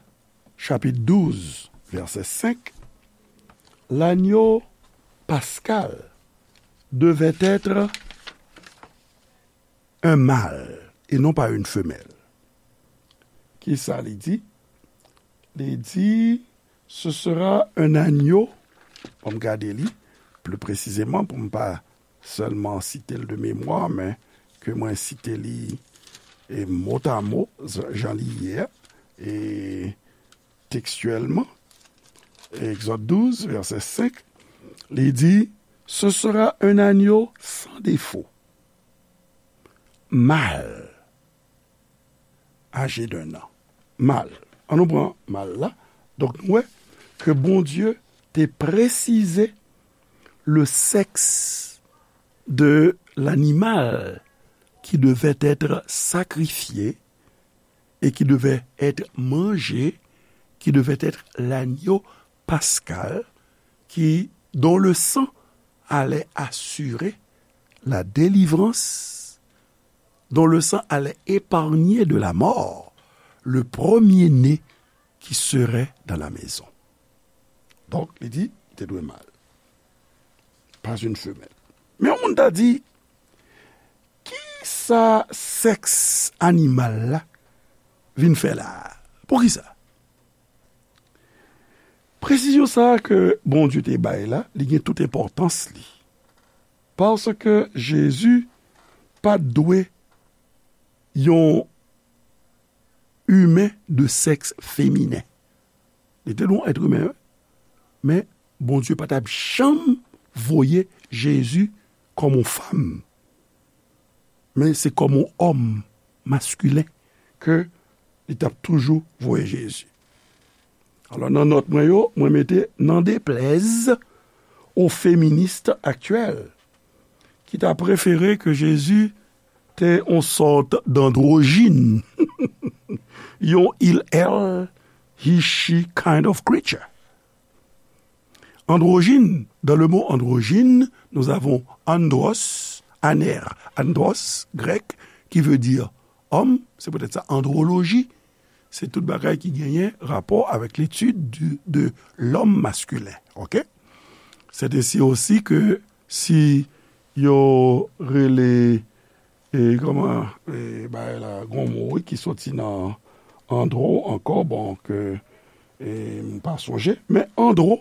chapitre douze, verset cinq, l'agneau pascal devait être un mâle et non pas une femelle. Kisa li di? Li di, ce sera un agneau. Ann gade li pli presizeman pou m pa sèlman site l de memwa, men ke mwen site li, e, mot à mot, jan li ye a, e tekstyèlman. Egzòd douz, vèsè senk, li di, ce sera un agneau sans défaut, mâle, âgé d'un an. Mâle. Ann nou pran mâle la. Donk, nou wè ke Bondye te presize le sexe de l'animal qui devait être sacrifié et qui devait être mangé, qui devait être l'agneau pascal, qui, dont le sang allait assurer la délivrance, dont le sang allait épargner de la mort le premier-né qui serait dans la maison. Donk, li di, li te dwe mâle, pas une femelle. Men yon moun ta di, kisa sèks animal la vin fè la a? Poukisa? Presizyon sa a ke Bondye te bay la, li gen tout enpòtans li. Paske Jezi pa t dwe yon imen de sèks feminen. Li te dwe yon èt imen, wi. Men Bondye pa t ap janm voye Jezi kòm yon fanm. Men se kòm yon òm maskilen ke li t ap toujou voye Jezi. Alò, nan nòt mwen yo, mwen mete, n'en déplaise aux féministes actuelles, ki ta prefere ke Jezi te yon sòt d'andwojin, yon il, elle, he, she kind of creature. Andwojin, dans le mot androgyne, nous avons andros, aner, andros, grec, qui veut dire homme, c'est peut-être ça, andrologie, se tout bagay ki genyen rapò avèk l'étude du, de l'homme masculin, ok? C'est ainsi aussi que si yo rele, e, kòman, e, bagay la, gon mo, wi, ki soti nan andro ankò, bon, ke, e, m pa sonje, men andro,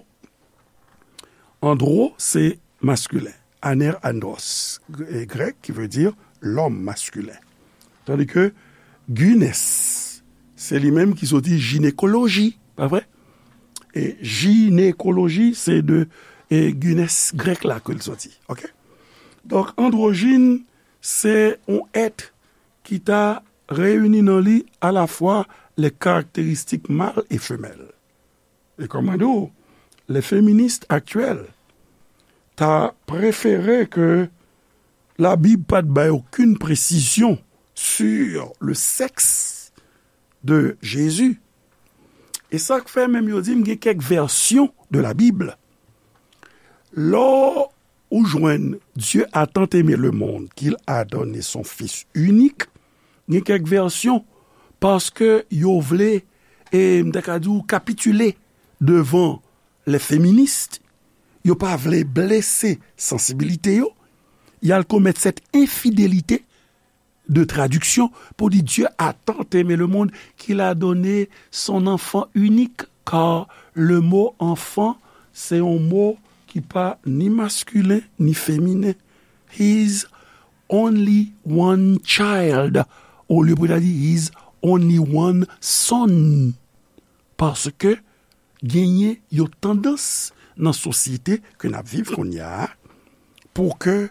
andro, se maskilen. Aner andros, e, grèk, ki vle di lòm maskilen. Tandi ke gynes, se li menm ki soti jinekoloji, pa vre? E jinekoloji, se de, e, gynes grèk la ke l soti. Ok? Donk, andwojin, se yon èt ki ta reyini nan li alafwa les caractéristiques mâles et femelles. E kòm mwen di w, les féministes actuelles ta prefere ke Labib pa t bay okenn presizyon sur le sexe de Jésus. E sa k fè menm yo di m gen kèk vèsyon de la Bible. Lè ou jwenn Dieu a tant aimé le monde qu'il a donné son Fils unique, gen kèk vèsyon, paske yo vle, e m ta ka di w, kapitile devan les féministes, yo pa vle blese sansibilite yo, y al komèt cette infidélité de traduction pour dire Dieu a tant aimé le monde qu'il a donné son enfant unique, car le mot enfant, c'est un mot qui pas ni masculin ni féminin. His only one child. Olye pou ta di his only one son. Paske genyen yon tandans nan sosyete ke n ap viv kounye a, pou ke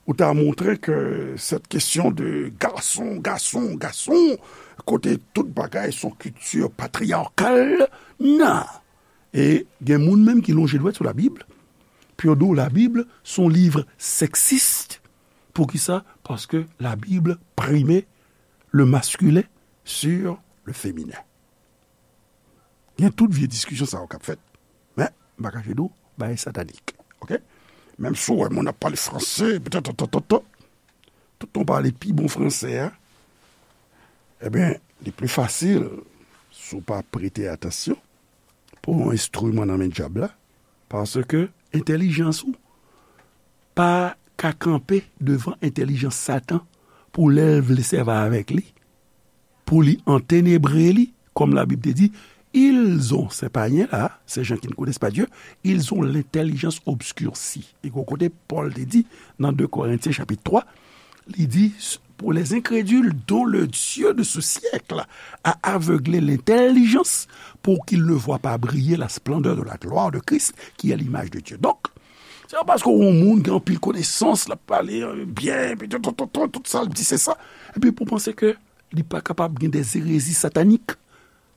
ou ta montre ke cette question de gason, gason, gason, kote tout bagay se yon kilti patriyakal, nan. E gen moun menm ki lonje dwèt sou Labib, pou yo di w Labib se yon liv sèksis. Poukisa? Paske Labib prime le masculin sur le féminin. Gen tout vye diskisyon sa yo k ap fèt. Men, m pa kache di w, bagay satanik. Oke? Menm si w wè moun ap pale franse, petèt, tout tan pale pi bon franse a, ebyen, li pli fasil, si w pa prete atansyon, pou yon enstriman nan men dyab la, paske entèlijans ou pa ka kanpe devan entèlijans Satan pou lè l vle sèvi avèk li, pou li antenebre li, kòm Labib te di, ils ont, ces païens-là, ces gens qui ne connaissent pas Dieu, ils ont l'intelligence obscurcie. E gwo kote Pòl te di nan de Korentyen chapit twa, li di, pour les incrédules dont le Dieu de ce siècle a aveuglé l'intelligence pour qu'ils ne voient pas briller la splendeur de la gloire de Christ qui est l'image de Dieu. Donk, se pa paske yon moun gen anpil konesans, l ap pale byen, epi tout, tout, tout, tout sa l di se sa, epi pou panse ke li pa kapab gen des hérésies sataniques,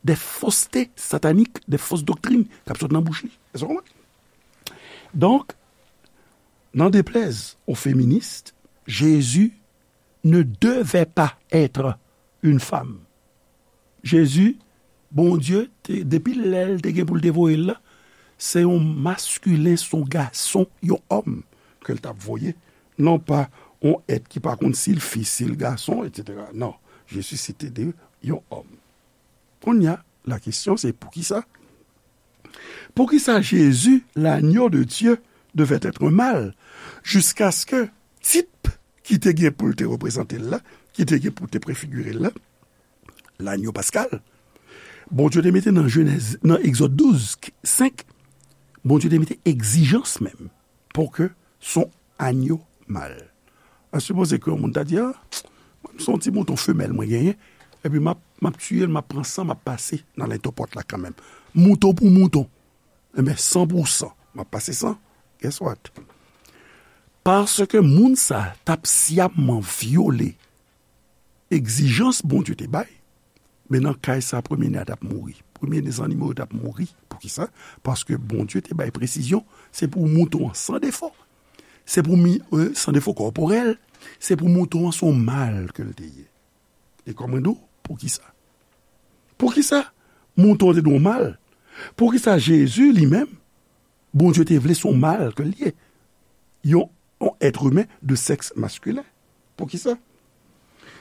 des faussetés sataniques, des fausses doctrines k ap sot nan bouch li. Èske w konprann? Donk, n'en déplaise aux féministes, Jésus ne devait pas être une femme. Jezi, Bondye, te, depi lè l te gen pou l te voye l la, se yon maskilen, se yon gason, yon òm ke l t ap voye. Non pa yon èt ki pa konn si l fi, si l gason, etsetera. Non, Jezi se te de yon òm. Kounye a, la kesyon se poukisa? Poukisa Jezi, l'agneau de Dieu, devait être mâle, jusqu'à ce que tip ki te gen pou l te reprezante l la, ki te gen pou te prefigire l la, l'agneau pascal, Bondye te mete nan Jenèz, nan Egzòd douz, senk, Bondye te mete egzijans menm pou ke s on agno mal. An sipoze ke yon moun ta di, a, mwen, s on ti mouton femèl mwen genyen, epi m ap, m ap tiye l, m ap pran san, m ap pase nan lentopòt la kanmenm. Mouton pou mouton. Enben, san pou san, m ap pase san. Guess what? Paske moun sa t ap syamman vyole egzijans Bondye te bay, men nan kay sa, premye ne a t ap mouri. Premye ne zannimo yo t ap mouri. Poukisa? Paske Bondye te bay presizyon, se pou mouton an san defo. Se pou mi, euh, san defo kòporèl, se pou mouton an s on mal ke l te ye. E kòm mwen di w, poukisa? Poukisa mouton an te dwe yon mal? Poukisa Jezi li menm, Bondye te vle s on mal ke l ye? Yon, yon èt imen de sèks maskilen. Poukisa?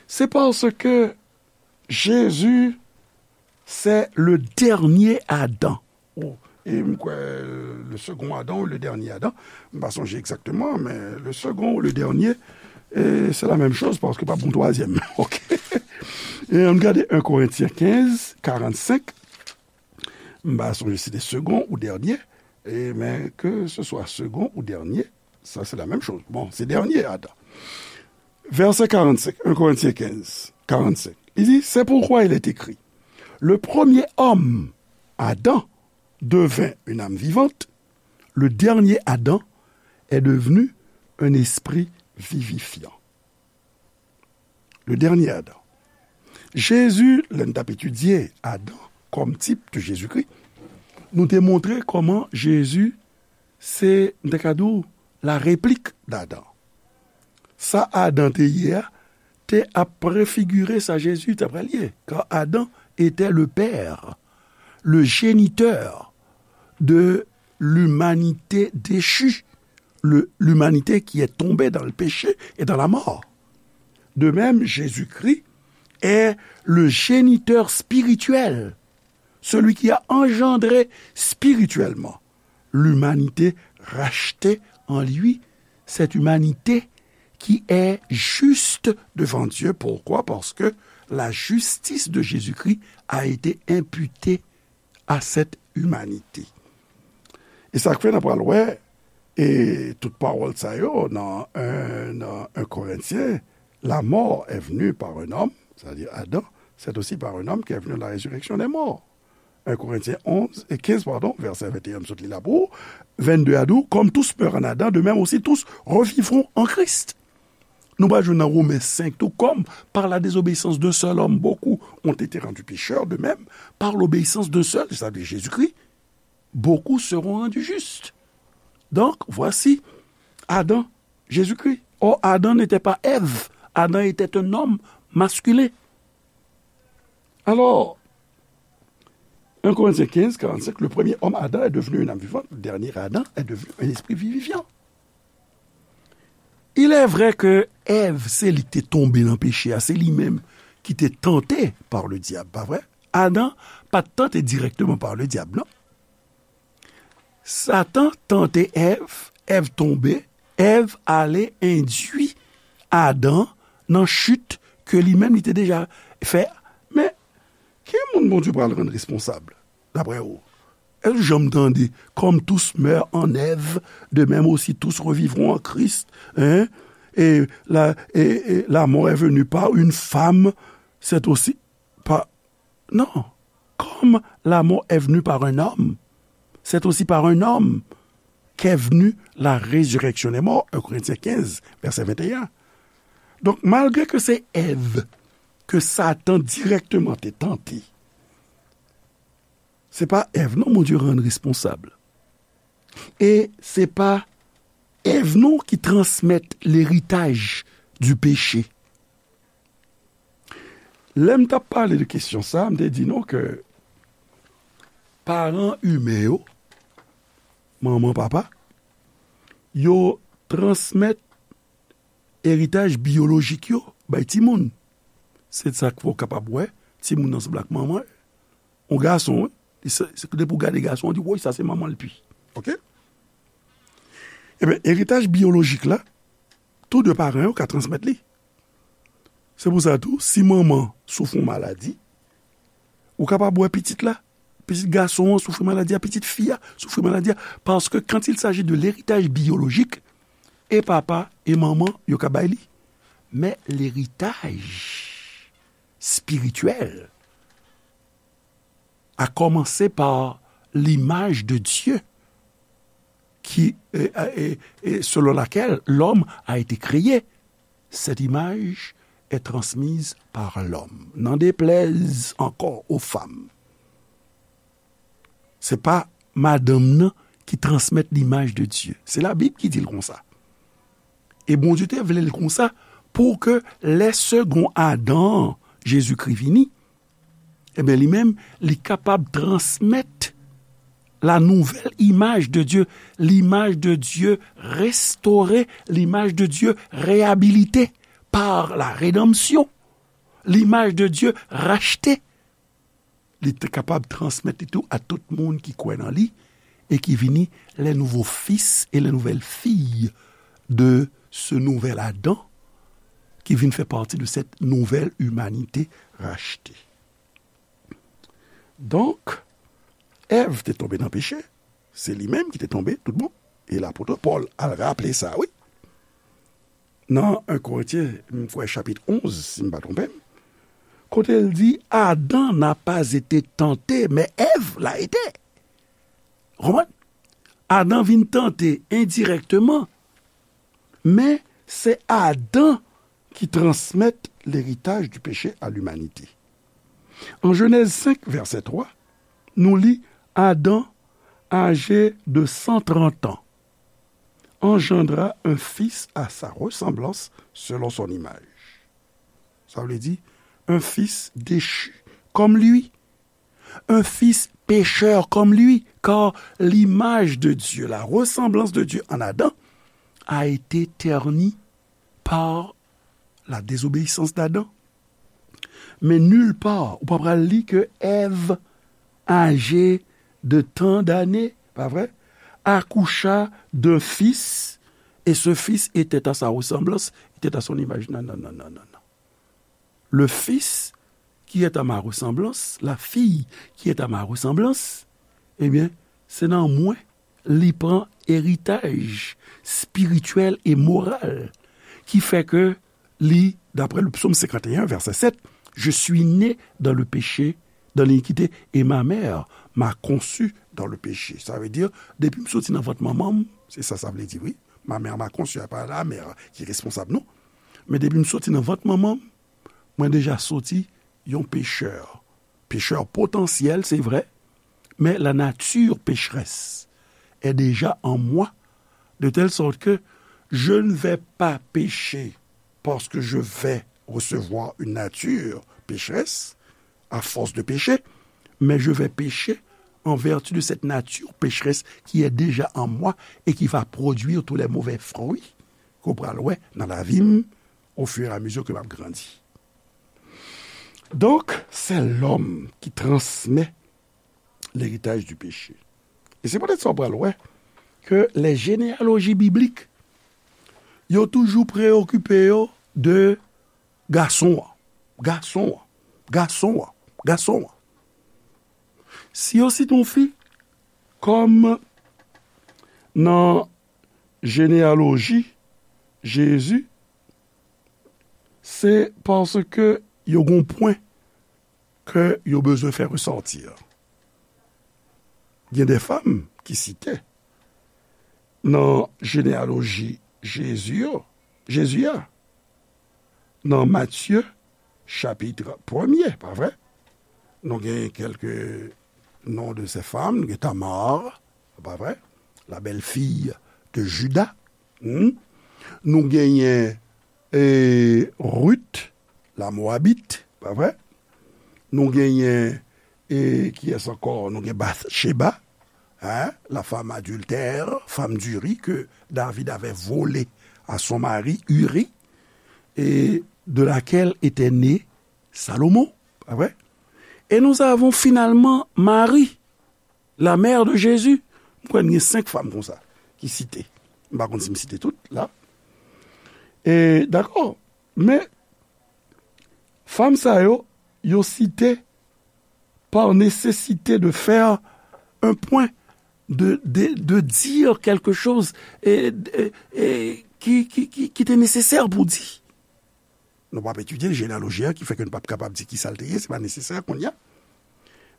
Se paske Jezi se le dènye Adan. Ou, e m kwè, le second Adam ou le dernier Adam, m pa sonje egzakteman, men le second ou le dernier, e se la menm choz paske pa bon twazyèm. Oke. E ann gade en Korentyen kenz, karannsenk. M pa sonje si se second ou dernier, e, men ke se swa second ou dernier, sa se la menm choz. Bon, se dènye Adan. Vèsè karannsenk, en Korentyen kenz, karannsenk. Li di, c'est pourquoi il est écrit, le premier homme, Adam, devint une âme vivante, le dernier Adam est devenu un esprit vivifiant. Le dernier Adam. Jezi, lè n t ap etidye Adan kòm tip de Jezikri, nou te montre kòman Jezi se, m te ka di w, la réplik d'Adam. Sa Adan te ye a, te ap prefigire sa Jezi ta pral ye, car Adam était le père, le géniteur de l'humanité déchue, le, l'humanité qui est tombée dans le péché et dans la mort. De même, Jésus-Christ est le géniteur spirituel, celui qui a engendré spirituellement l'humanité rachetée en lui, cette humanité qui est juste devant Dieu. Pourquoi? Parce que la justice de Jésus-Christ a été imputée à cette humanité. E sa k fè n ap pral wè, e tout pawòl sa yo nan un, nan un Korentyen, la mort est venue par un homme, c'est-à-dire Adam, c'est aussi par un homme qu'est venue la résurrection des morts. Un Korentyen onz, e kenz, pardon, vèsè venteyen, m sot li la pou ou, vennde a di w, comme tous meurent en Adam, de même aussi tous revivront en Christ. Nou pral jwenn nan Women senk tou, comme par la désobéissance d'un seul homme, beaucoup ont été rendus pécheurs, de même, par l'obéissance d'un seul, c'est-à-dire Jésus-Christ, beaucoup seront rendus justes. Donc, voici Adam, Jésus-Christ. Or, Adam n'était pas Ève. Adam était un homme masculin. Alors, un Corinthiens quinze, quarante-cinq, le premier homme Adam est devenu une âme vivante, le dernier Adam est devenu un esprit vivifiant. Il est vrai que Èv, se li ki te tonbe nan peche a, se li menm ki te tante par le diable, pa vre? Adan pa t tante dirèkteman par le diable, non. Satan tante Èv, Èv tonbe, Èv ale endui Adan nan chit ke li menm li te deja fè. Men, ki moun Bondye pral rann responsab, daprè ou? Èske w janm tande, comme tous meurent en Ève, de même aussi tous revivront en Christ, hein? Et la, et, et la mort est venue par une femme, c'est aussi par, non. Comme la mort est venue par un homme, c'est aussi par un homme qu'est venue la résurrection des morts, un Corinthiens quinze, verset vingt et un. Donk, malgre ke se Èv ke Satan dirèkteman te tante, se pa Èv non Bondye rann responsab. E se pa Èv non ki transmèt leritaj di peche. Lè m t ap pale de kesyon sa, m te di nou ke paran imen yo, manman, papa, yo transmèt eritaj biyolojik yo bay timoun. Se sa k fè w kapab wè timoun nan sanble ak manman l. Yon gason, wi. Li se, se depi w gade gason, w di, woy, sa se manman l pi. Oke? Ebyen, eritaj biyolojik la, tou de paran yo ka transmèt li. Se pou sa tou, si manman soufri yon maladi, ou kapab wè pitit la, pitit gason an soufri maladi a, pitit fi a soufri maladi a, paske quand il s'agit de l'héritage biologique, e papa e manman yo ka bay li. Men leritaj spirityèl a commencé par l'image de Dieu qui, et, et, et selon laquelle l'homme a été créé. Cette image est transmise par l'homme. N'en déplaise encore aux femmes. Se pa madanm nan ki transmèt limaj de Dye. Se Labib ki di l konsa. E Bondye te vle l konsa pou ke lè segon Adan an, Jezikri, vini, ebyen, li menm, li kapab transmèt la nouvelle image de Dieu, l'image de Dieu restaurée, l'image de Dieu réhabilitée par la rédemption, l'image de Dieu rachetée. Li te kapab transmèt li tou a tout moun ki kwè nan li e ki vini les nouveaux fils et les nouvelles filles de ce nouvel Adam qui vient faire partie de cette nouvelle humanité rachetée. Donk, Èv te tonbe nan peche, se li menm ki te tonbe tout bon. E lapot Pòl al raple sa, wi. Nan un Korentyen, m kwè chapit onz, si m pa twonpe m, kote l di, Adam n'a pas été tenté, mais Ève l'a été. Ou konprann? Adan vin tante endirèkteman, men se Adan ki transmèt leritaj di peche a limanite. An Jenèz senk, vèsè twa, nou li, Adam, âgé de cent trente ans, engendra un fils à sa ressemblance, selon son image. Sa vle di, un fils déchu comme lui, un fils pécheur comme lui, car l'image de Dieu, la ressemblance de Dieu en Adam, a été ternie par la désobéissance d'Adam. Men nilpa, ou pa pral li ke Èv, âgée de tant d'années, pa vre, accoucha d'un fils et ce fils était à sa ressemblance, était à son image. Non, non, non, non, non, non. Le fils qui est à ma ressemblance, la fille qui est à ma ressemblance, ebyen, se nan mwen li pran eritaj espirityèl e moral ki fè ke li, d'après le psaume cinquante et un, verset sept, je suis né dans le péché, dans l'iniquité, et ma mère m'a conçu dans le péché. Sa vle di, depi m soti nan vant manman m, se sa sa vle di, wi. Ma mère m'a conçu, pa la mère ki responsab, non. Men depi m soti nan vant manman m, mwen deja soti yon pechè. Pechè potansyèl, se vre, mais la nature pécheresse est déjà en moi, de telle sorte que je ne vais pas pécher parce que je vais recevoir une nature pécheresse à force de pécher, mais je vais pécher en vertu de cette nature pécheresse qui est déjà en moi et qui va produire tous les mauvais fruits ke w pral wè nan lavi m au fur et à mesure que m ap grandi. Donc, c'est l'homme qui transmet l'héritage du péché. E se poutèt sa w pral wè ke les généalogies bibliques, yo toujou preyokipe yo de gason an, gason an, gason an, gason an. Si yo site yon fi kòm nan jeneyaloji Jezi, se paske yo gon pwen ke yo bezwen fè resòti. Gen de fanm ki site nan jeneyaloji Jezi yo, Jezi a, nan Matye chapit premye, pa vre? Nou gen kèlke non de ces femmes, nou gen Tamar, pa vre? La belle-fille de Juda. Hmm? Nou genyen e, Ruth, la Moabit, pa vre? Nou genyen, e, kiyès ankò? Nou gen Bathsheba, hein, la femme adultère, femme d'Uri, que David avait volée à son mari Uri, et de laquelle était né Salomon, pa vre? Et nous avons finalement Marie, la mère de Jésus. M kwè n gen senk fanm konsa ki site. M pa konn si m site tout la. E, dakò. Men, fanm sa yo, yo site par nécessité de faire un point, de, de, de dire quelque chose e, e, e, ki, ki, ki, ki te nesesè pou di. Nou p ap etidye jeneyaloji a, ki fè ke n p ap kapab di ki sa l te ye, se pa nesesè kounye a.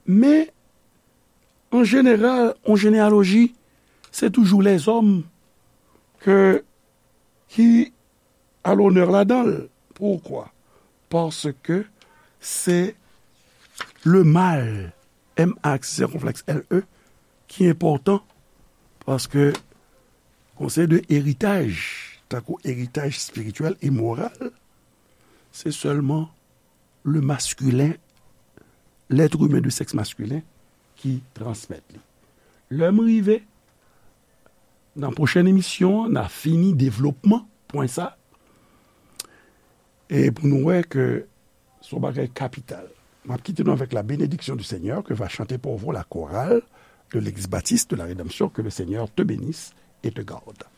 Men, an jeneral, yon jeneyaloji, se toujou lèzòm ke, ki a lonè ladan l. Poukwa? Paske se le mâle, M A aksè sèkonflèks L E, ki enpòtan, paske gon seri de eritaj, tankou eritaj espirityèl e moral, se sèlman le masculin, l'être humain de sexe masculin ki transmèt li. Lè m rive nan pwochèn emisyon an, n a fini devlopman pwen sa. E pou nou wè ke se yon bagay kapital. M ap kite nou avec la bénédiction du Seigneur que va chanter pour vous la chorale de l'Église baptiste de la Rédemption. Que le Seigneur te bénisse et te garde.